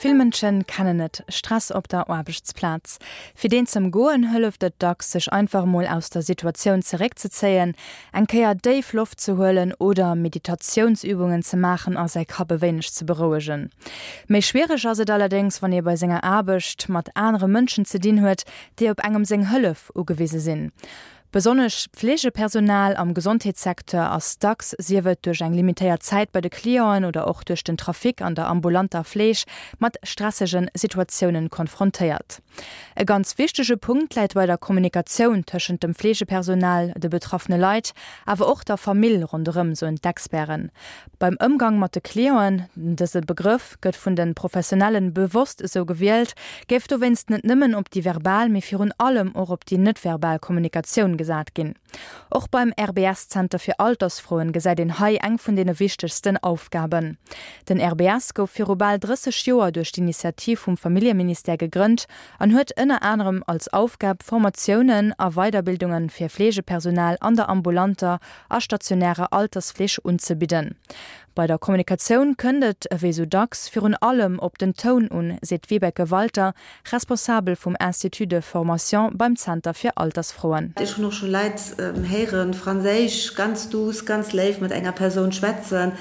Vill Mënsche kennen et, Stress op der Aarbechtsplaz. Fir deen z'ëmgoen, hëlleft et dacks, sech einfach emol aus der Situatioun zeréckzezéien, eng Kéier déif Loft ze huelen oder Meditatiounsübungen ze maachen a säi Kapp e wéineg ze berouegen. Méi schwiereg ass et allerdéngs, wann ee bei senger Aarbecht mat anere Mënschen ze dinn huet, déi op engem seng Hëllef ugewise sinn. Besonnesch d'Fleegepersonal am Gesondheetssecteur ass dacks, sief et duerch eng limitéiert Zäit bei de Clienten oder och duerch den Trafic an der ambulanter Fleeg, mat stressege Situatiounen konfrontéiert. E ganz wichtege Punkt läit bei der Kommunikatioun tëschent dem Fleegepersonal, de betraffene Leit, awer och der Famill ronderëm, soen d'Experten. Beim Ëmgang mat de Clienten, dëse Begrëff gëtt vun de Professionellen bewosst esou gewielt, géif dowéinst net nëmmen op déi verbal, mee virun allem och op déi net-verbal Kommunikatioun gesat ginn. Och beim RBS-Zenter fir Altersfroen gesäit een hei eng vun deene wichtegsten Aufgaben. Den RBS gouf viru bal 30 Joer duerch d'Initiativ vum Familljeministère gegrënnt an huet ënner anerem als Aufgab, Formatiounen a Weiderbildunge fir Fleegepersonal an der ambulanter a stationärer Altersfleeg unzebidden. Bei der Kommunikatioun kënnt et, ewéi sou dacks, virun allem op den Toun un, seet d'Vibeke Walter, Responsabel vum Institut de formation beim Zenter fir Altersfroen. Ech hunn och scho Leit héieren, Franséisch ganz douce, ganz léif mat enger Persoun schwätzen,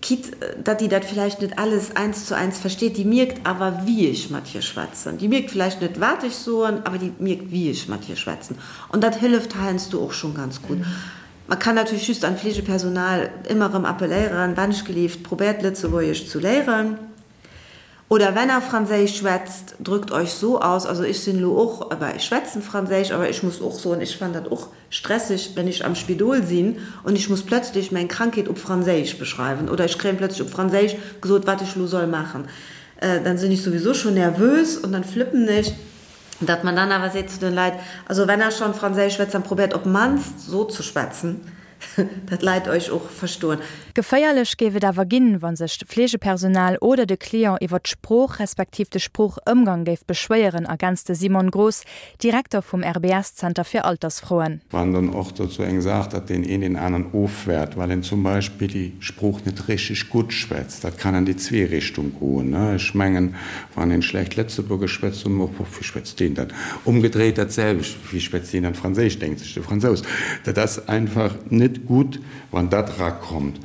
quitte datt déi dat villäicht net alles eins zu eins versteet, déi mierkt awer wéi ech mat hir schwätzen. Déi mierkt villäicht net wat ech soen, awer déi mierkt wéi ech mat hir schwätzen. An dat hëlleft heiansdo och schonn ganz gutt. Man kann natierlech just an d'Fleegepersonal ëmmer erëm appelléieren, Wennschgelift, probéiert Lëtzebuergesch zu léieren. Oder wenn er Franséisch schwätzt, drückt euch so aus. Also ech sinn elo och, bah, ech schwätzen Franséisch, awer ech muss och soen, ech fannen dat och stresseg, wenn ech am Spidol sinn und ich muss plötzlich meng Krankheet op Franséisch beschreiwen oder ech kréien plötzlich op Franséisch gesot, wat ech elo soll maachen. Dann sinn ech souwisou schon nervös und dann flippen ech. Datt man dann awer seet zu den Leit, also wenn er schon Franséisch schwätzt, dann probéiert op mannst so zu schwätzen, datt d'Leit euch och verstoen. Geféierlech géif et awer ginn, wa sech d'Fleegepersonal oder de Client iwwer d'Sprooch respektiv de Sproochëmgang géif beschwéieren, ergänzt de Simon Groß, Direkter vum RBS-Zenter fir Altersfroen. Wann dann och dozou eng Saach, datt deen een deen aneren ofwäert, well en zum Beispill déi Sprooch net richteg gutt schwätzt. Dat kann an déi zwee Richtung goen. Ech mengen, wann een schlecht Lëtzebuergesch schwätzt, soen mer och, Wéi schwätzt deen dat? Umgedréit dat selwecht, Wéi schwätzt deen dann Franséisch, denkt sech de Fransous. Dat ass einfach net gutt, wann dat erakommt.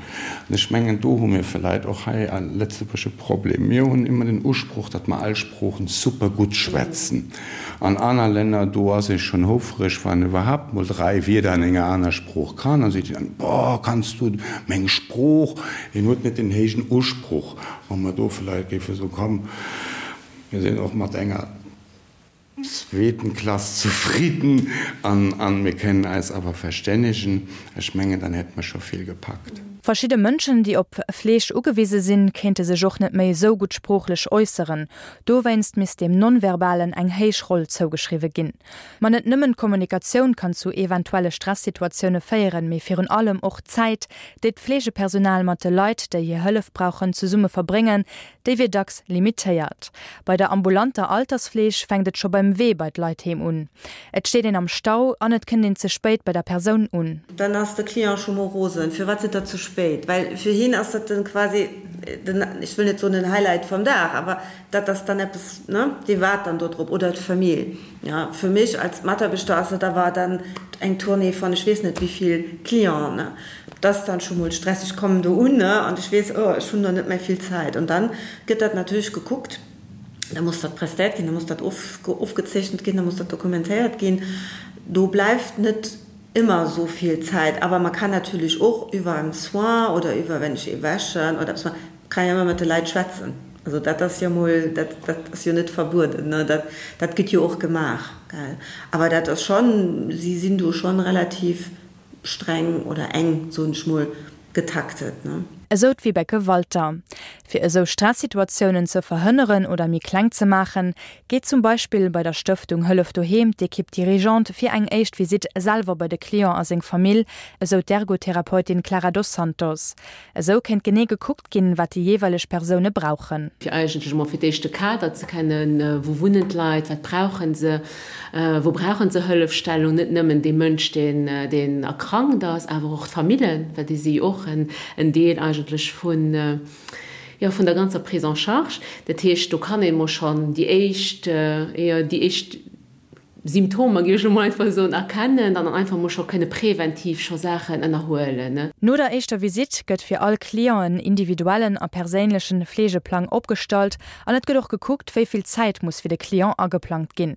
An ech mengen, do hu mir vläit och hei a Lëtzebuerg e Problem. Mir hunn ëmmer den Usproch, datt mer all Sproochen super gutt schwätzen. An aner Länner, do ass ee schonn houfreg, wann en iwwerhaapt mol 3 Wierder an enger aner Sprooch kann. Dann seet een dann, Boah, kanns du meng Sprooch? Een huet net den héijen Usproch. Wa mer do vläicht géife soen, Komm, mir sinn och mat enger zweeten Klass zefridden an mir kënnen eis awer verstännegen, ech mengen, dann hätte mer scho vill gepackt. Verschidde Mënschen, déi op Fleeg ugewise sinn, kéinte sech och net méi esou gutt sproochlech äusseren. Dowéinst misst dem Non-Verbalen eng héich Roll zougeschriwwe ginn. Ma net nëmmen d'Kommunikatioun kann zu eventuelle Stressituatioune féieren, mee virun allem och d'Zäit, déi d'Fleegepersonal mat de Leit, déi hir Hëllef brauchen, zesumme verbréngen, déi wier dacks limitéiert. Bei der ambulanter Altersfleeg fänkt et scho beim Wee bei d'Leit heem un. Et steet een am Stau an et kënnt een ze spéit bei der Persoun un. Dann ass de Client scho mol rosen, Firwat sidd der ze spéit? Well fir hien ass dat dann quasi den, ech wëll net soen den Highlight vum Dag, awer dat ass dann eppes, ne, dee waart dann do drop, oder d'Famill. Ja, fir mech als Mataarbechter ass dat awer dann eng Tournée von ech weess net wéi vill Clienten, ne. Dat ass dann scho mol stresseg. Ech kommen do un, ne, an ech weess, oh, ech hunn do net méi vill Zäit. An dann gëtt dat natierlech gekuckt. Da muss dat prestéiert ginn, da muss dat ofgezeechent ginn, da muss dat dokumentéiert ginn. Do bleift net ëmmer esou vill Zäit. Awer man kann natierlech och iwwer en Soin oder iwwer, wenn ech ee wäschen oder eppes maachen, kann jo ëmmer mat de Leit schwätzen. Also dat ass jo mol, dat dat ass jo net verbueden, ne, dat dat gëtt jo och gemaach, gell. Awer dat ass schonn, si sinn do schonn relativ streng oder eng, soen ech mol, getaktet, ne. Esou d'Vibeke Walter. Fir esou Stressituatiounen ze verhënneren oder méi kleng ze maachen, geet zum Beispill bei der Stëftung Hëllef Doheem d'Equipe dirigeante fir eng éischt Visitt selwer bei de Client a seng Famill, esou d'Ergotherapeutin Clara Dos Santos. Esou kéint genee gekuckt ginn, wat déi jeeweileg Persoune brauchen. Fir eigentlech emol fir d'éischt de Kader ze kennen, wou wunnen d'Leit, wat brauche se, wou brauche se Hëllefstellung, net nëmmen dee Mënsch, deen deen erkrankt ass, awer och d'Famillen, well déi si jo och en Deel eigentlech vun. Jo, vun der ganzer Prise en charge. Dat heescht, do kann ee mol schonn déi éischt, jo, déi éischt Symptomer, géif ech elo mol einfach soen, erkennen an dann einfach mol scho kënne präventiv scho Saachen ënnerhuelen. No der éischter Visitt gëtt fir all Client en individuellen a perséinlechen Fleegeplang opgestallt an et gëtt och gekuckt, wéi vill Zäit muss fir de Client ageplangt ginn.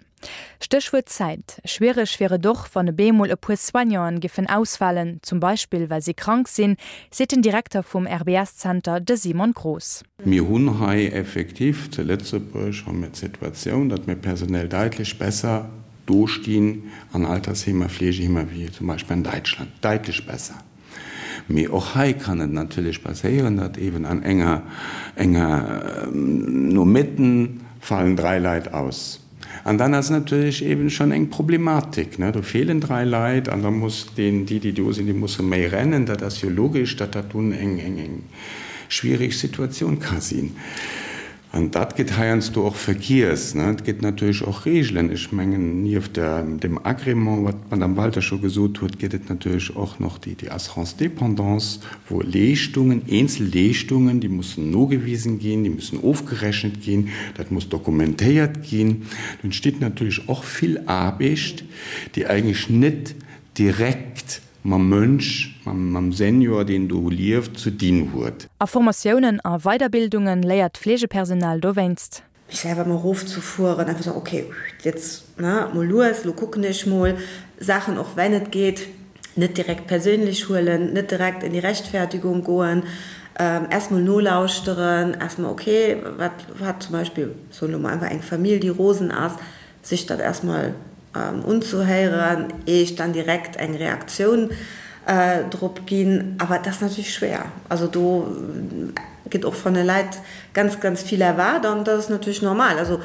Stéchwuert Zäit. Schwiereg wier et och, wann e bemol e puer Soignanten giffen ausfalen, zum Beispill well si krank sinn, seet den Direkter vum RBS-Zenter, de Simon Groß. Mir hunn hei effektiv zu Lëtzebuerg hu mir d'Situatioun, datt mir personell daitlech besser dostinn an Altersheemer, Fleegeheemer wéi zum Beispill an Däitschland, daitlech besser. Mee och hei kann et natierlech passéieren, datt eeben an enger, enger Nomëtten fallen 3 Leit aus. An dann ass natierlech eeben schonn eng Problematik, ne? Do feelen 3 Leit an da muss deen, déi, déi do sinn, déi musse méi rennen. Dat ass jo logesch, datt dat dunn eng, eng, eng schwierig Situatioun ka sinn. An dat gëtt heiansdo och vergiess. Et gëtt natierlech och Regeln. Ech mengen, nieft dem Agrément, wat d'Madame Walter scho gesot huet, gëtt et natierlech och nach déi Assurance dépendance, wou Leeschtungen, eenzel Leeschtungen, déi mussen nogewisen ginn, déi mussen ofgerechent ginn, dat muss dokumentéiert ginn. Do entsteet natierlech och vill Aarbecht, déi eigentlech net direkt mam Mënsch, mam Senior, deen do lieft, ze dinn huet. A Formatiounen a Weiderbildunge léiert d'Fleegepersonal dowéinst. Mech selwer mol erofzefueren, einfach soen, ok, jetzt, ne, mol lues, lo kucken ech mol Saachen, och wenn et geet, net direkt perséinlech huelen, net direkt in die Rechtfertigung goen, erst mol nolauschteren, erst mol, ok, wat hat zum Beispill, soen elo mol einfach eng Famill, déi rosen ass, sech dat erstmol unzehéieren, ier ech dann direkt eng Reaktioun drop ginn. Awer et ass natierlech schwéier. Also do gëtt och von de Leit ganz, ganz vill erwaart an dat ass natierlech normal. Also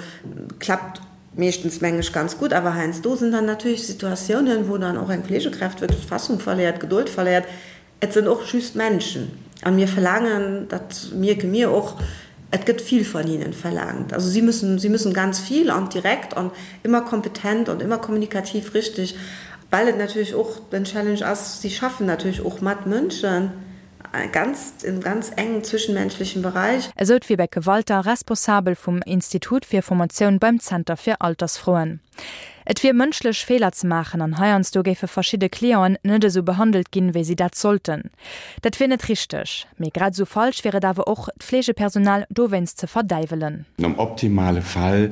klappt meeschtens, meng ech, ganz gutt. Awer heiansdo sinn dann natierlech Situatiounen, wou dann och eng Fleegekräft wierklech d'Fassung verléiert, d'Gedold verléiert. Et sinn och just Menschen an mir verlaangen, dat mierke mir och, et gëtt vill von ihnen verlangt. Also sie müssen, sie müssen ganz viel an direkt an immer kompetent und immer kommunikativ richtig, well et natierlech och den Challenge ass, sie schaffen natierlech och mat Mënschen, ganz, im ganz engen zwischenmenschlichen Bereich. Esou d'Vibeke Walter, Responsabel vum Institut fir Formatioun beim Zenter fir Altersfroen. Et wier mënschlech, Feeler ze maachen an heiansdo géife verschidde Clienten net esou behandelt ginn, wéi si dat sollten. Dat wier net richteg. Mee grad esou falsch wier et awer och, d'Fleegepersonal dowéinst ze verdäiwelen. Am optimale Fall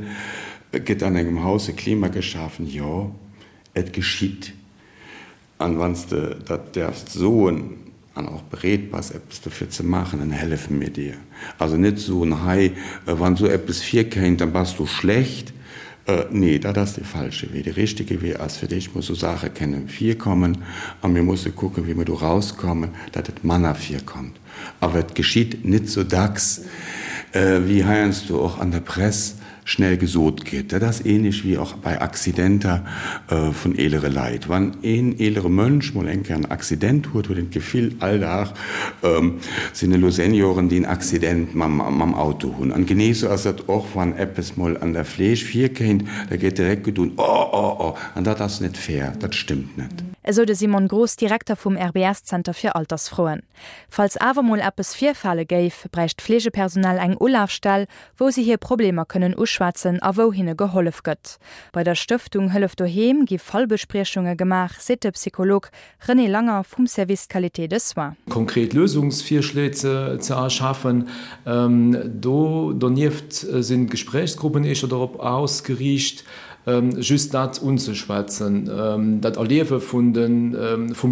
gëtt an engem Haus e Klima geschafen, jo, et geschitt. An wann s de dat däerfs soen an och bereet bass eppes dofir ze maachen, dann hellefe mir dir. Also net soen, hei, wann esou eppes virkéint, dann bass du schlecht. Nee, dat ass dee falsche Wee. De richtege Wee ass, fir d'éischt mol esou Saache kënnen virkommen a mir musse kucken, wéi mir do rauskommen, datt et manner virkommt. Awer et geschitt net sou dacks, wéi heiansdo och an der Press schnell gesot gëtt. Dat ass ähnlech wéi och bei Accidenter vun eelere Leit. Wann een eelere Mënsch mol eng Kéier en Accident huet, huet een d'Gefill, all Dag sinn elo Senioren, déi en Accident mam Auto hunn. An genee sou ass dat och, wann eppes mol an der Fleeg virkéint, da gëtt direkt gedoen, Oh, oh, oh! An dat ass net fair, dat stëmmt net. Esou de Simon Groß, Direkter vum RBS-Zenter fir Altersfroen. Falls awer mol eppes virfale géif, bräicht d'Fleegepersonal eng Ulafstell, wou si hir Problemer kënnen uschwätzen a wou hinne gehollef gëtt. Bei der Stëftung Hëllef Doheem gi Fallbespriechunge gemaach, seet de Psycholog René Langer vum Service Qualité de soins. Konkret Lösungsvirschléi ze erschafen. Do donieft sinn d'Gespréichsgruppen éischter dorop ausgeriicht, Just dat unzeschwätzen, dat Erliewe vum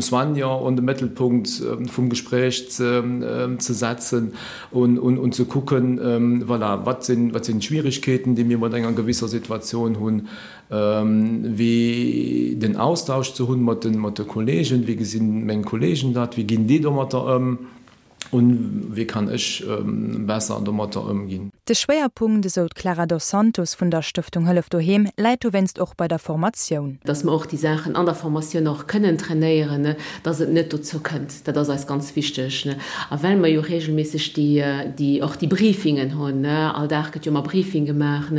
Soignant an de Mëttelpunkt vum Gespréich ze setzen un ze kucken, voilà, wat sinn d'Schwierigkeeten, déi mir mat enger gewisser Situatioun hunn, wéi den Austausch ze hunn mat de Kollegen, wéi gesinn meng Kollegen dat, wéi ginn déi domatter ëm. Un wéi kann ech besser domatter ëmginn? De Schwéierpunkt, esou d'Clara Dos Santos vun der Stëftung Hëllef Doheem, läit dowéinst och bei der Formatioun. Dass mer och déi Saachen an der Formatioun och kënnen trainéieren, dass et net dozou kënnt. Dat ass eis ganz wichteg. A well mer jo reegelméisseg déi, och déi Briefingen hunn, all Dag gëtt jo ëmmer Briefing gemaach,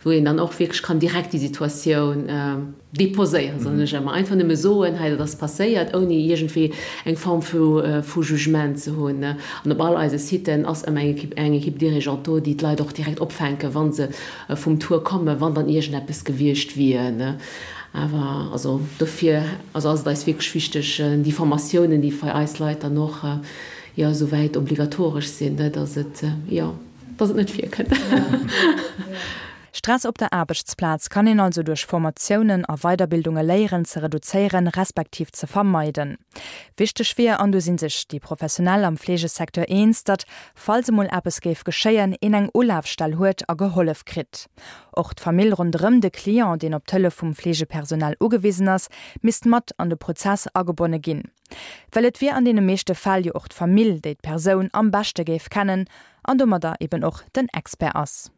wou een dann och wierklech kann direkt déi Situatioun, Déposéieren, soen ech ëmmer. Einfach nëmme soen, hei dat ass passéiert, ouni iergendwéi eng Form vu Jugement ze hunn. An op all eise Siten ass ëmmer eng Équipe, eng Équipe dirigeante do, déi d'Leit och direkt opfänken, wa se vum Tour kommen, wann dann iergendeppes gewiescht wier. Awer also dofir also ass et eis wierklech wichteg, déi Formatiounen, déi fir eis Leit dann och jo esouwäit obligatoresch sinn, dass et jo, dass et net virkënnt. Stress op der Aarbechtsplaz kann een also duerch Formatiounen a Weiderbildunge léieren ze reduzéieren, respektiv ze vermeiden. Wichteg wier, an do si sech déi Professionell am Fleegesecteur eens, datt, falls emol eppes géif geschéien, een eng Ulafstell huet a gehollef kritt. Och d'Famill ronderëm de Client, deen op d'Hëllef vum Fleegepersonal ugewisen ass, misst mat an de Prozess agebonne ginn. Well et wier an deene meeschte Fäll jo och d'Famill, déi d'Persoun am beschte géif kennen an domadder eben och den Expert ass.